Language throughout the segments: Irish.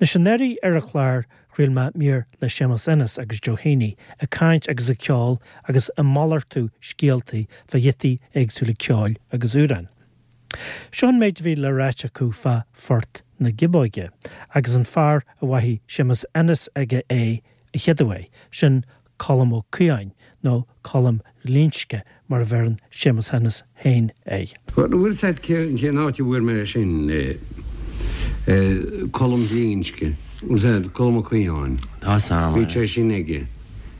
Anois anuraidh ar an chlár chraol mé mír le Séamus Ennis agus Joe Heaney ag caint agus ag ceol agus ag malartú scéaltaí fá ghiotaí éagsúla ceoil agus amhráin. Seo an méid a bhí le ráit acu fá Phort na Giobóige agus an fear a mhaígh Séamus Ennis aige é a chéaduair, sin Colm Ó Caodháin, nó Colm Ghlinsce mar a bheireann Séamus Ennis féin air. Bhuel, bhfuil 's a'd cén áit a bhfuair mé é sin, Colm Ghlinsce, bhfuil 's a'd, Colm Ó Caodháin. Tá 's a'm. Bhí sé sin aige.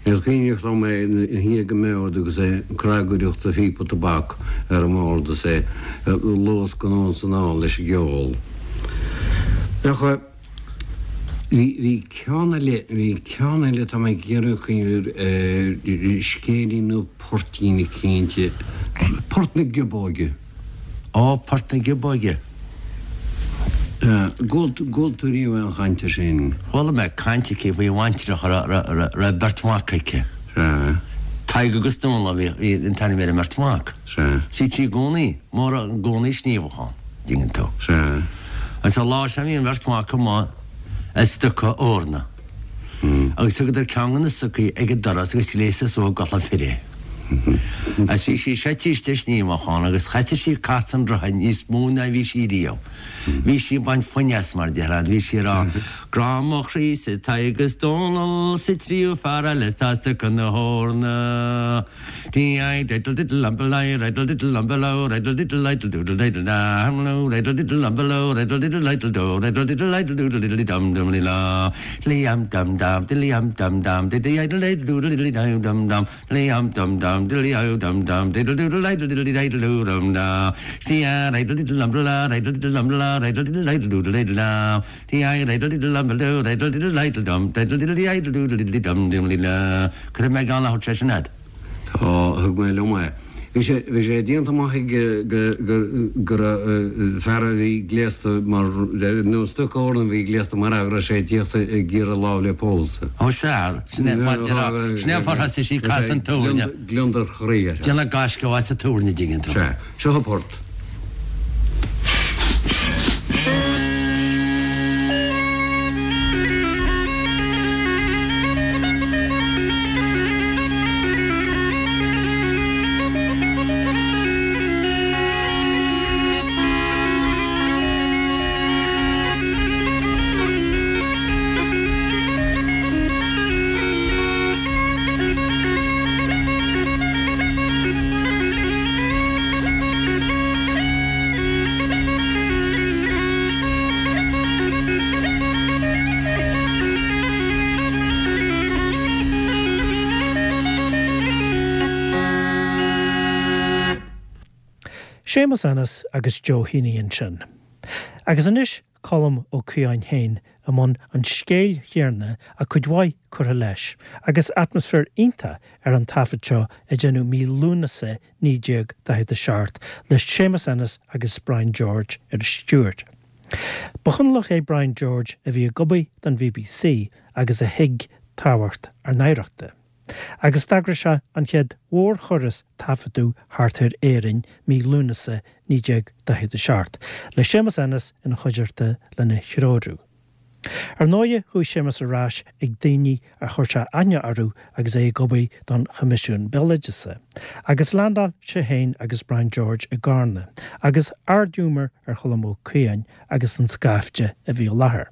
Is cuimhneach liom é ina shuí ag an mbord agus é ag cnagaireacht a phíopa tobac ar an mbord is é ag luascadh anonn 's anall leis an gceol. Ach bhí, bhí ceann eile, bhí ceann eile tá mé ag iarraidh cuimhneamh air, scéilín nó poirtín eicínt, Port na Giobóige. Ó, Port na Giobóige. Gcuala tú riamh aon chaint air sin? Chuala mé caint aici faoi bhaintreach a raibh beirt mhac aici. Sea. Tadhg agus Dónall a bhí an t-ainm ar an mbeirt mhac. Sea. Bhí sí i gcónaí, mór i gcónaí sníomhadh ann, dtuigeann tú. Sea. Agus an lá sin bhí an bheirt mhac amuigh ag stoca eorna. Agus thugadar ceann de na stocaí ag an doras agus ghléasadar suas i gculaith fir é. Agus bhí sí seite istigh sníomhachán agus chaiteadh sí casadh an rotha níos mó ná bhí sí riamh. Bhí sí ag baint foighne as mar déarfá, bhí sí ag rá, Grá mo chroí-sa Tadhg is Dónall 's an tríú fear eile atá ag stoca na heorna. Cuirfidh mé ceann a thabhairt sé sin agat. Tá, thug mé liom é. Bhí sé, bhí sé déanta amach aige go, go, go raibh fear a bhí gléasta mar, nó stoca eorna a bhí gléasta mar fhear go raibh sé ag tíocht ag iarraidh lámh le pósadh. Ó sea, sin é mar déarfá, sin é an fáth ar thosaigh sí ag casadh an túirne. Gliondar chroí uirthi. Déanamh gaisce as an túirne, dtuigeann tú. Sea, seo an port. Séamus Ennis agus Joe Heaney ansin. Agus anois Colm Ó Caodháin féin i mbun an scéil chéanna ach cuid mhaith curtha leis, agus atmaisféar iontach ar an taifead seo a deineadh mí Lúnasa 1947 le Séamus Ennis agus Brian George ar an stiúir. Ba Chonallach é Brian George a bhí ag obair don BBC agus a thuig tábhacht ár n-oidhreachta. Agus d'eagraigh sé an chéad mhórthuras taifeadadh thart ar Éirinn mí Lúnasa 1947, le Séamus Ennis ina chuideachta lena threorú. Ar ndóighe chuaigh Séamus ar ais ag daoine ar chuir sé aithne orthu agus é ag obair don Choimisiún Béaloideasa, agus leaindeáil sé féin agus Brian George i gCarna, agus ardghiúmar ar Cholm Ó Caodháin agus an scaifte a bhí i láthair.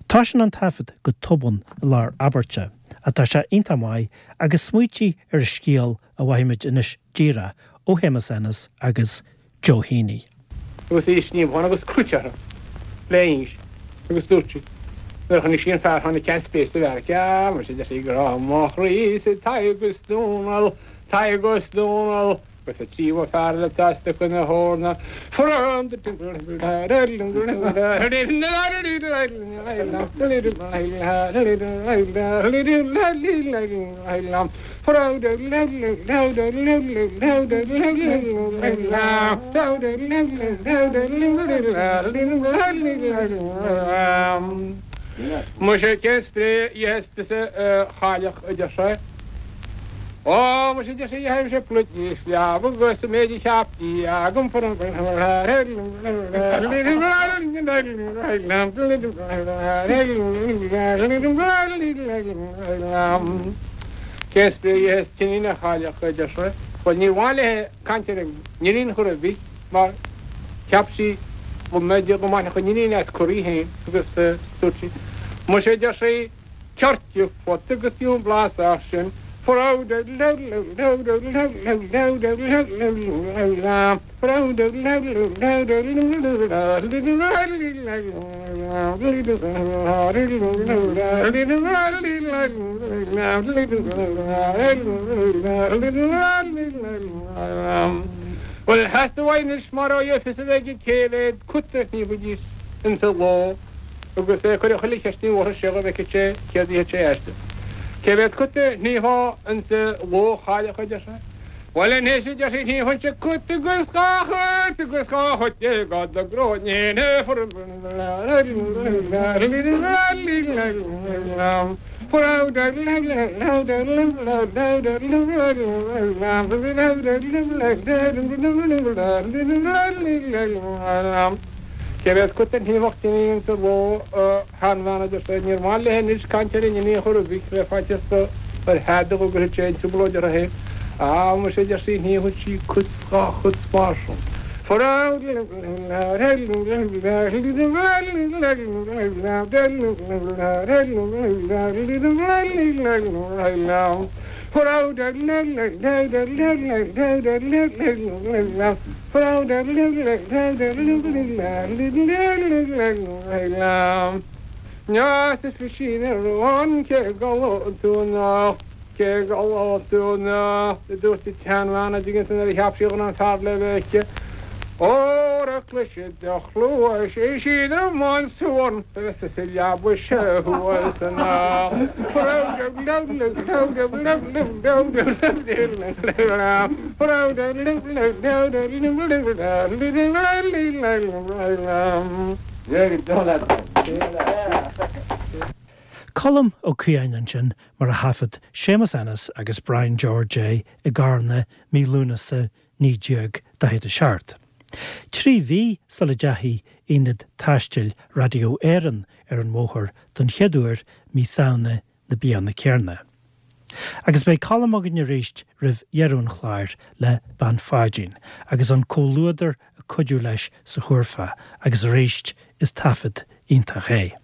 Toisíonn an taifead go tobann i lár abairte, ach tá sé iontach maith agus smaoitigh ar an scéal a mhaífimid anois díreach ó Shéamus Ennis agus Joe Heaney. Agus í sníomhán agus cruit uirthi le inse agus dúirt sí nuair a chonaic sí an fear tháinig ceann spéis sa bheairic Ah muise deir sí grá mo chroí-sa Tadhg is Dónall Tadhg is Dónall agus an tríú fear eile atá ag stoca na heorna Muise cén spré a itheas tusa a chailleach a deir sé. Ó, muise, deir sí, gheibhimse pluid níos leamha agus an méid a cheap Dia agam Cén spraoi a itheas t'iníon a chailleach, a deir sé. Bhuel, níor mhaith léi caint ar an n-iníon chor ar bith mar cheap sí go mb'fhéidir go mbainfeadh an iníon as cur í féin agus dúirt sí, Muise, a deir sí, Coirce phota agus fiú an blas as sin. Bhuel, theastaigh uaidh anois mar ó fios a bheith aige cé mhéad cut a shníomhaidís insa ló. Agus é ag cur chuile cheist ní bhfuarthas sé go bhfeicfeadh sé céard a dhéanfadh sé aisti. Cé mhéad cut a shníomhfá insa ló a chailleach a deir sé. Bhuel anois a deir sí shníomhfainnse cut agus dhá chut agus dhá chut déag do ghráinnín Cé mhéad cut a shníomhfadh d'iníon sa ló, a sheanbhean, a deir sé. Níor mhaith léi anois caint ar an iníon chor ar bith, le faitíos do ar theadach go gcuirfeadh sé i dtrioblóid uirthi féin. Á, muise, a deir sí, shníomhfadh sí cut 's dhá chut 's mar sin. Cé go tú anocht, a dúirt an tseanbhean, an dtuigeann tú nuair a cheap sí go raibh an fear le bheith aici. Óra cloisfidh do chluais é siad i mbun suan agus is i leaba sé thuas anocht. Colm Ó Caodháin ansin mar a thaifead Séamus Ennis agus Brian George é i gCarna mí Lúnasa 1947. Trí mhí sula dteachaigh Aonad Taistil Radio Éireann ar an mbóthar don chéad uair mí Samhna na bliana céanna. Agus beidh Colm againn arís roimh dheireadh an chláir le Bean Pháidín agus an comhluadar ag cuidiú leis sa chúrfa agus arís is taifead iontach é.